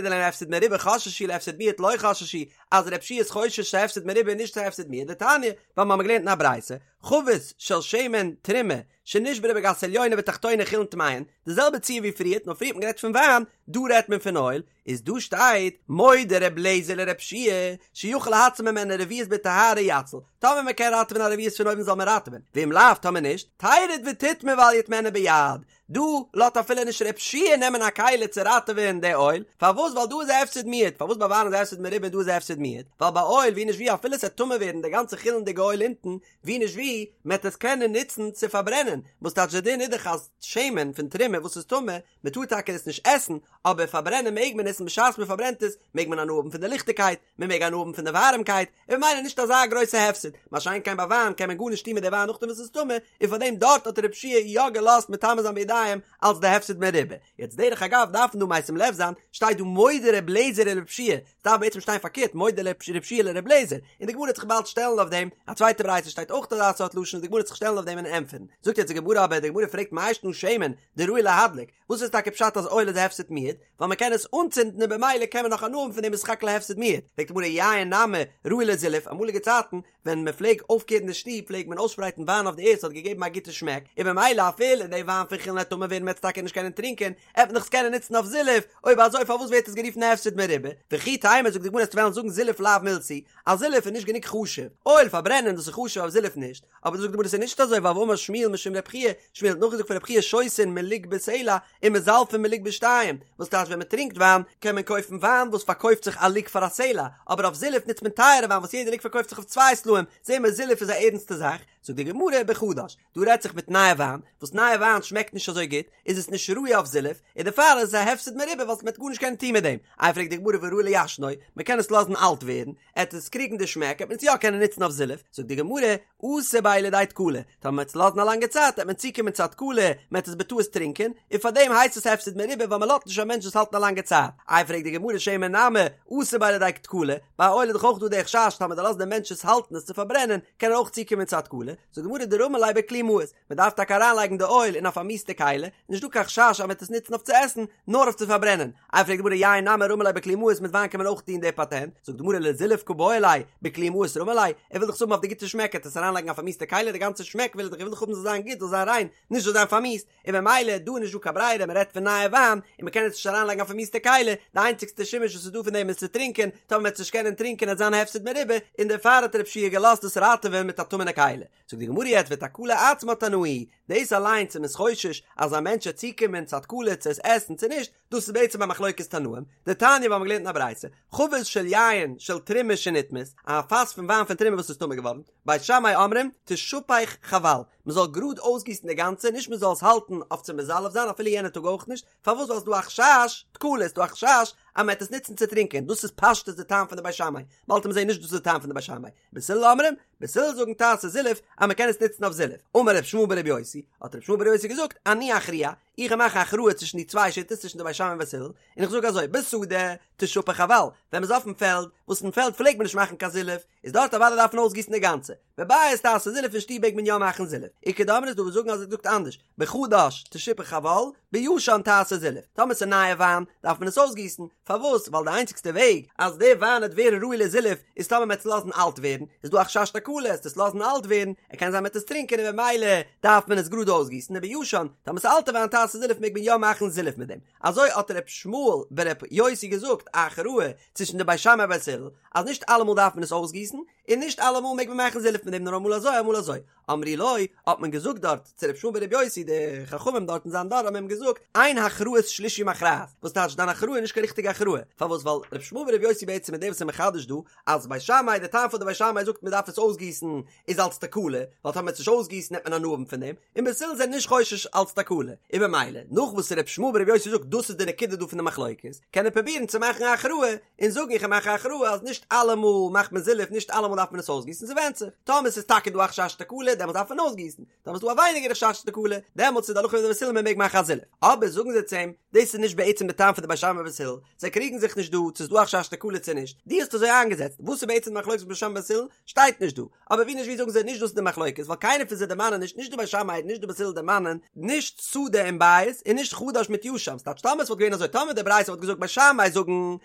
דלהפסד מרובה חששו להפסד מועט לא חששו, אז רב יהושע איז חושש צו הפסד מרובה און נישט צו הפסד מועט, דתניא, ווייל מיר האבן געלערנט אין א ברייתא, חבית של שמן תרומה שנשברה בגת עליונה ותחתונה חולין טמאין, די זעלבע ציור ווי פריערט, נאר פריער האט מען גערעדט פון וויין, דא רעדט מען פון אויל, איז דא שטייט מודה ר' לעזער לר' יהושע שיכול להציל ממנה רביעית בטהרה יציל, טאמער מען קען ראטעווען א רביעית פון אויבן זאל מען ראטעווען, ואם לאו טאמער נישט, תרד ותטמא ואל יטמאנה ביד, דא לאזט אפילו נישט ר' יהושע נעמען א כלי צו ראטעווען די אויל, פארוואס ווייל דא איז א הפסד מועט, פארוואס ביי וויין איז א הפסד מרובה און דא איז א הפסד מועט, ווייל ביי אויל ווי נישט ווי אפילו ס'עט טמא ווערן די גאנצע חולין'דיגע אויל אונטן, ווי נישט ווי, מ'עט עס קענען נוצן צו פארברענען, וואס טייטש די דין איז דאך אז שמן פון תרומה וואס איז טמא, מען טאר טאקע עס נישט עסן, אבער פארברענען מעג מען עס און בשעת מען פארברענט עס מעג מען הנאה האבן פון די ליכטיגקייט, מען מעג הנאה האבן פון די ווארעמקייט, און ממילא נישט אזא גרויסע הפסד, מה שאין כן ביי וויין קען מען גארנישט טון מיט די וויין נאכדעם וואס עס איז טמא, און פארדעם דארט האט ר' יהושע יא געלאזט מטמא זיין בידיים אלס די הפסד מרובה. יעצט דרך אגב דארף מען דא משים לב זיין, שטייט דא מודה ר' לעזער לר' יהושע, ס'דארף בעצם שטיין פארקערט מודה ר' יהושע לר' לעזער, און די גמרא וועט זיך באלד שטעלן אויף דעם, א צווייטע ברייתא שטייט אויך אזא סארט לשון און די גמרא וועט זיך שטעלן אויף דעם און ענטפערן. זאגט יעצט די גמרא אבער די גמרא פרעגט מאי שנא שמן דראוי להדליק, וואס איז טאקע פשט אז אויל איז א הפסד מועט? ווייל מען קען עס אנצינדן און במילא קען מען נאך הנאה האבן פון דעם איז סך הכל א הפסד מועט. פרעגט די גמרא יין נמי ראוי לזילוף, אמאליגע צייטן ווען מען פלעג אויפקערן די שטוב פלעג מען אויסשפרייטן וויין אויף די ערד ס'האט געגעבן א גוטע שמעק, און במילא אפילו די וויין פון חולין וועט טמא ווערן מ'עט עס טאקע נישט קענען טרינקען, עט מען דאך עס קענען נוצן אויף זילוף, אויב אזוי פארוואס ווערט עס גערופן א הפסד מרובה? וכי תימא זאגט די גמרא עסט וועלן זאגן זילוף לאו מילתא היא, אז זילוף איז נישט גענוג חשוב, אויל פארברענען דאס איז חשוב אבער זילוף נישט, אבער דא זאגט די גמרא ס'איז נישט אזוי ווייל והאמר שמואל משום רב חייא, שמואל האט נאכגעזאגט פון רב חייא שותין מלוג בסלע ומזלפין מלוג בשתיים, וואס טייטש ווען מען טרינקט וויין קען מען קויפן וויין וואס פארקויפט זיך א לוג פאר א סלע, אבער אויף זילוף נוצט מען טייערע וויין וואס יעדע לוג פארקויפט זיך אויף צוויי סלעים, זעהן מיר זילוף איז א ערנסטע זאך, זאגט די גמרא בחדש, דא רעדט זיך מיט נייע וויין, וואס נייע וויין שמעקט נישט אזוי גוט, איז עס נישט ראוי אויף זילוף, און דערפאר איז עס א הפסד מרובה ווייל מ'וועט גארנישט קענען טון מיט דעם, איי פרעגט די גמרא והא ראוי לישנו, מען קען עס לאזן אלט ווערן, עט עס קריגן די שמעק עט מען עס יא קענען נוצן אויף זילוף, זאגט די גמרא, אתי ביה לידי תקלה, טאמער מ'עט עס לאזן א לאנגע צייט עט מען צוקומען צו א תקלה, מ'עט עס בטעות טרינקען, און פארדעם הייסט עס הפסד מרובה ווייל מ'לאזט נישט א מענטש עס האלטן א לאנגע צייט, איי פרעגט די גמרא שמן נמי, אתי ביה לידי תקלה, ביי אויל איז דאך אויך דא די חשש טאמער דו לאזט דעם מענטש עס האלטן עס צו פארברענען, קען ער אויך צוקומען צו א תקלה, זאגט די גמרא דרמי ליה בכלי מאוס, מען דארף טאקע אריינלייגן די אויל אין א פארמיסטע כלי, נישט דא קיין חשש אז מען וועט עס נוצן אויף צו עסן, נאר אויף צו פארברענען. איי פרעגט די גמרא יין נמי רמי ליה בכלי מאוס מיט וויין קען מען אויך טון די פאטענט, זאגט די גמרא לזילוף קא בעי ליה, בכלי מאוס רמי ליה, ער וויל דאך עס האבן אויף די גוטע שמעק ער וועט עס אריינלייגן אין א פארמיסטע כלי די גאנצע שמעק וויל ער דאך ער וויל דאך האבן זאל זיין גוט זאל זיין ריין, נישט זאל זיין פארמיסט, און במילא דא איז נישט דא קיין ברירה מען רעדט פון נייע וויין און מען קען עס נישט אריינלייגן אין א פארמיסטע כלי, די איינציגסטע שימוש וואס איז דא פון דעם איז צו טרינקען, טאמער מען וועט עס נישט קענען טרינקען וועט זיין הפסד מרובה, און דערפאר האט ר' יהושע געלאזט עס ראטעווען מיט א טמא'נע כלי. זאגט די גמרא יעצט ותקלה עצמה תנאי, דאס אליינס איז מען חושש אז א מענטש וועט צוקומען צו א תקלה צו עס עסן צו נישט, דאס איז בעצם א מחלוקת תנאים, דתניא ווי מ'האט געלערנט אין א ברייתא, חבית של יין של תרומה שנטמאת, א פאס פון וויין פון תרומה וואס איז טמא געווארן, בית שמאי אומרים, תשפך חבל, מען זאל גראד אויסגיסן די גאנצע, נישט מען זאל עס האלטן אויף צו מזלף זיין אפילו יענע טאג אויך נישט, פארוואס ווייל ס'איז דא א חשש תקלה, ס'איז דא א חשש אז מען וועט עס נוצן צו טרינקען, דאס איז פשטות די טעם פון די בית שמאי, באלד וועט מען זען נישט דאס איז די טעם פון די בית שמאי, בית הלל אומרים, בית הלל זאגן תעשה זילוף אז מען קען עס נוצן אויף זילוף, אמר ר' ישמעאל ברבי יוסי, האט ר' ישמעאל ברבי יוסי געזאגט, אני אכריע, איך מאך א הכרעה צווישן די צוויי שיטות צווישן די בית שמאי און בית הלל, און איך זאג אזוי, בשדה, תשפך חבל, ווען מען איז אויפן פעלד, וואס אין פעלד פלעגט מען נישט מאכן קיין זילוף, איז דארט אוודאי דארף מען אויסגיסן די גאנצע, בבית תעשה זילוף אין שטוב מעג מען יא מאכן זילוף, איכא דאמרי איז דא וואס זאגן אז ער זאגט אנדערש, בחדש תשפך חבל, בישן תעשה זילוף, טאמער ס'איז נייע וויין דארף מען עס אויסגיסן, פארוואס? ווייל די איינציגסטע וועג אז די וויין וועט ווערן ראוי לזילוף איז טאמער מ'עט עס לאזן אלט ווערן, איז דא א חשש תקלה עס לאזן אלט ווערן, ער קען זיין מ'עט עס טרינקען און במילא דארף מען עס גראד אויסגיסן, ובישן, טאמער ס'איז אלטע וויין תעשה זילוף מעג מען יא מאכן זילוף מיט דעם. אזוי האט ר' ישמעאל בר' יוסי געזאגט א הכרעה צווישן די בית שמאי ובית הלל אז נישט אלעמאל דארף מען עס אויסגיסן, און נישט אלעמאל מעג מען מאכן זילוף מיט דעם נאר אמאל אזוי אמאל אזוי. אמרו לו, האט מען געזאגט דארט צו ר' ישמעאל בר' יוסי, די חכמים דארט אין זיין דור האבן אים געזאגט, אין הכרעת שלישי מכרעת, וואס טייטש דיין הכרעה איז נישט קיין ריכטיגע הכרעה, פארוואס ווייל ר' ישמעאל בר' יוסי בעצם איז דער וואס איז מחדש דא, אז בית שמאי, די טעם פון די בית שמאי זאגט מען דארף עס אויסגיסן איז אלס תקלה, ווייל טאמער מ'עט עס נישט אויסגיסן נעמט מען הנאה האבן פון דעם, און בית הלל זענען נישט חושש אלס תקלה, און במילא, נאך וואס ר' ישמעאל בר' יוסי זאגט דאס איז די נקודה דא פון די מחלוקת, קען ער פרובירן צו מאכן א הכרעה, און זאגן איך מאך א הכרעה אז נישט אלעמאל מאכט מען זילוף נישט אלעמאל דארף מען עס אויסגיסן ס'ווענדט זיך טאמער ס'איז טאקע דא א חשש תקלה דעמאלטס דארף מען אויסגיסן טאמער ס'איז דא א ווייניגערע חשש תקלה דעמאלטס איז די הלכה ווי די בית הלל מען מעג מאכן א זילוף אבער זאגן זיי צו אים דאס איז נישט בעצם די טעם פון די בית שמאי ובית הלל זיי קריגן זיך נישט דא צו ס'איז דא א חשש תקלה צו נישט דו האסט אזוי איינגעזעצט וואס איז בעצם די מחלוקת בית שמאי ובית הלל שטייט נישט דא אבער ווי נישט ווי זאגן זיי נישט דאס איז די מחלוקת ווייל קיינער פון זיי דערמאנען נישט נישט די בית שמאי און נישט די בית הלל דערמאנען נישט שדה און בית און נישט חדש מיט ישן ס'טייטש טאמער ס'וואלט געווען אזוי טאמער די ברייתא וואלט געזאגט בית שמאי זאגן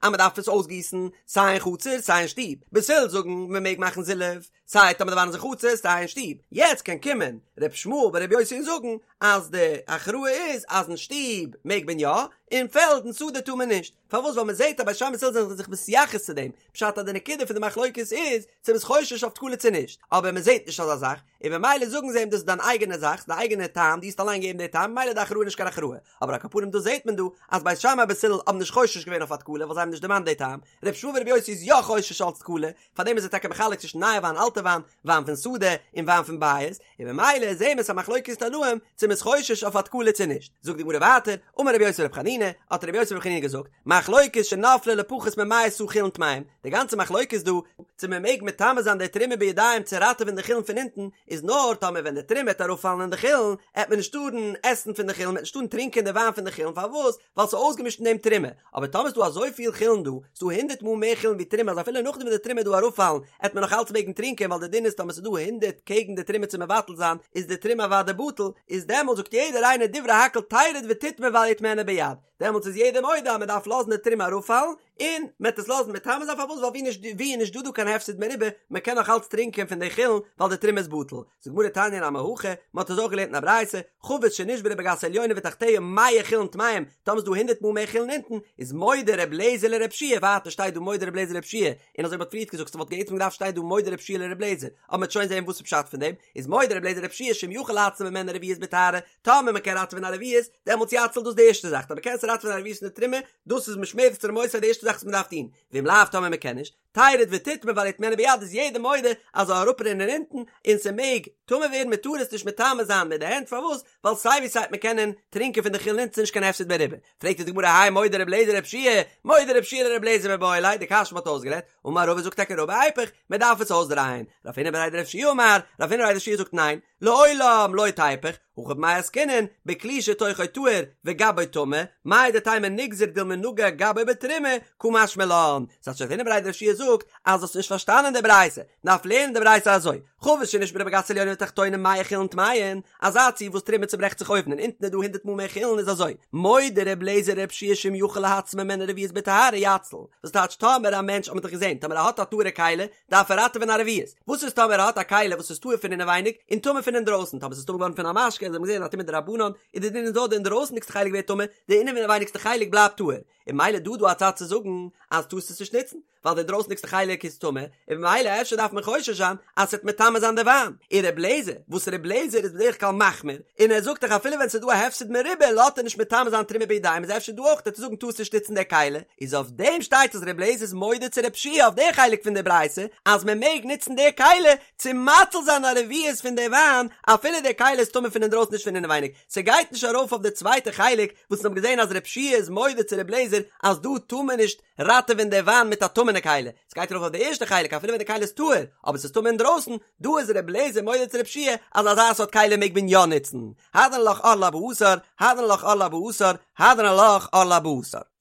אז מ'דארף עס אויסגיסן סיי אין חצר סיי אין שטוב בית הלל זאגן מ'מעג מאכן זילוף. סיי טאמער די וויין איז אין חצר סיי אין שטוב, יעצט קען קומען ר' ישמעאל בר' יוסי און זאגן אז די הכרעה איז אז אין שטוב מעג מען יא, אין פעלד אין שדה טאר מען נישט, פארוואס ווייל מען זעט אז בית שמאי בית הלל זענען זיך מתייחס צו דעם, פשט אז די נקודה פון די מחלוקת איז צו מ'איז חושש אויף תקלה צו נישט, אבער מען זעט נישט אזא זאך, און במילא זאגן זיי אים דאס איז דיין אייגענע זאך, דיין אייגענע טעם, דו האסט אליין געגעבן די טעם, ממילא איז די הכרעה נישט קיין הכרעה. אבער על כל פנים דא זעט מען דא אז בית שמאי בית הלל האבן נישט חושש געווען אויף א תקלה ווייל זיי האבן נישט דערמאנט די טעם, ר' ישמעאל בר' יוסי איז יא חושש אלץ תקלה, פארדעם איז ער טאקע מחלק צווישן נייע וויין אלטע וויין, וויין פון שדה און וויין פון בית, און במילא זעהן מיר ס'איז א מחלוקת תנאים צו מ'איז חושש אויף א תקלה צו נישט. זאגט די גמרא ווייטער, אמר רבי יוסי ברבי חנינא, האט רבי יוסי ברבי חנינא געזאגט, מחלוקת שנפלה לפחות ממאה סאה חולין טמאים, די גאנצע מחלוקת דא, צו מען מעג מטמא זיין די תרומה בידיים צו ראטעווען די חולין פון אונטן, איז נאר טאמער ווען די תרומה וועט אראפפאלן אין די חולין, עט מען נישט טארן עסן פון די חולין, מען עט נישט טארן טרינקען די וויין פון די חולין, פארוואס? ווייל ס'איז אויסגעמישט אין דעם תרומה. אבער טאמער איז דא אזויפיל חולין דא, ס'איז דא הונדערט מאל מער חולין ווי תרומה אז אפילו נאכדעם ווען די תרומה וועט דא אראפפאלן, עט מען נאך אלץ מעגן טרינקען ווייל די דין איז טאמער ס'איז דא הונדערט קעגן די תרומה צו מבטל זיין, איז די תרומה אוודאי בטל, איז דעמאלט זאגט יעדער איינער דברי הכל תרד ותטמא ואל יטמאנה ביד. דעמאלטס איז יעדער מודה אז מען דארף לאזן די תרומה אראפפאלן, און מען וועט עס לאזן מטמא זיין, פארוואס? ווייל ווי נישט ווי איז נישט דא דא קיין הפסד מרובה, מען קען נאך אלץ טרינקען פון די חולין ווייל די תרומה איז בטל. זאגט די גמרא תניא נמי הכי, מען האט עס אויך געלערנט אין א ברייתא, חבית שנשברה בגת העליונה ותחתיה מאה חולין טמאים, טאמער איז דא הונדערט מאל מער חולין אונטן, איז מודה ר' לעזער לר' יהושע ווייטער שטייט דא מודה ר' לעזער לר' יהושע און אזוי ווי מ'האט פריערט געזאגט ס'וואלט בעצם געדארפט שטיין דא מודה ר' יהושע לר' לעזער, אבער מ'וועט שוין זען וואס איז פשט פון דעם, איז מודה ר' לעזער לר' יהושע שאם יכול להציל ממנה רביעית בטהרה, טאמער מען קען ראטעווען א רביעית, דעמאלטס יציל דאס די ערשטע זאך, טאמער קענסטו ראטעווען א רביעית פון די תרומה, דאס איז משמרת תרומותי די ערשטע זאך וואס מען דארף טון, ואם לאו טאמער מען קען נישט, תרד ותטמא ואל יטמאנה ביד איז יעדער מודה אז זאל אראפרינען אונטן, און ס'מעג טמא ווערן מען טאר עס נישט מטמא זיין מיט די הענט, פארוואס? ווייל סיי ווי סיי וועט מען קענען טרינקען פון די חולין אונטן ס'נישט קיין הפסד מרובה, פרעגט די גמרא האי מודה ר' לעזער לר' יהושע, מודה ר' יהושע לר' לעזער מיבעי ליה, די קשיא מ'האט אויסגערעדט, אמר רבא זאגט טאקע רבא איפוך, מען דארף עס אויסדרייען, רב הונא בריה דרב יהושע אמר, רב הונא בריה דרב יהושע זאגט ניין, לעולם לא תיפוך, הכא במאי עסקינן, בכלי שתוכו טהור וגבו טמא, מהו דתימא ניגזור דילמא נגע גבו בתרומה, קא משמע לן. ס'הייסט רב הונא בריה דרב יהושע זאגט אז האסט נישט פארשטאנען די ברייתא, מ'דארף לערנען די ברייתא אזוי, חבית שנשברה בגת עליונה ותחתונה מאה חולין טמאין, אזא ציור וואס תרומה צוברעכט זיך אויבן און אונטן איז דא הונדערט מאל מער חולין איז אזוי, מודה ר' לעזער לר' יהושע שאם יכול להציל ממנה רביעית בטהרה יציל, וואס טייטש טאמער א מענטש האט מען דאך געזען טאמער ער האט א טהור'ע כלי דארף ער ראטעווען א רביעית, וואס איז טאמער ער האט א כלי וואס איז טהור פון אינעווייניג און טמא פון אינדרויסן, טאמער ס'איז טמא געווארן פון א משקה, אזוי האט מען געזען א טומאה דרבנן, איז די דין איז נאר די אינדרויסנדיגסטע חלק ווערט טמא, די אינעווייניגסטע חלק בלייבט טהור, און ממילא דא דא א צד צו זאגן אז טארסט עס נישט נוצן, ווייל די אינדרויסנדיגסטע חלק איז טמא, און ממילא אפשר דארף מען חושש זיין אז ס'וועט מטמא זיין די וויין, און ר' לעזער, וואס ר' לעזער איז בדרך כלל מחמיר, און ער זאגט דאך אפילו ווען ס'איז דא א הפסד מרובה לאזט ער נישט מטמא זיין תרומה בידיים איז אפשר דא אויך וועט ער זאגן טארסט נישט נוצן די כלי, איז אויף דעם שטייט אז ר' לעזער איז מודה צו ר' יהושע אויף די חלק פון די ברייתא אז מען מעג נוצן די כלי צו מציל זיין א רביעית פון די וויין אפילו די כלי איז טמא פון אינדרויסן נישט פון אינעווייניג, ס'גייט נישט ארויף אויף די צווייטע חלק וואס מ'האט געזען אז ר' יהושע איז מודה צו ר' לעזער אז דא טאר מען נישט ראטעווען די וויין מיט א טמא'נע כלי, ס'גייט ארויף אויף די ערשטע חלק אפילו ווען די כלי איז טהור אבער ס'איז טמא אינדרויסן, דא איז ר' לעזער מודה צו ר' יהושע אז אזא סארט כלי מעג מען יא נוצן, הדרן עלך ערלה בארבעה עשר, הדרן עלך ערלה בארבעה עשר, הדרן עלך ערלה בארבעה עשר.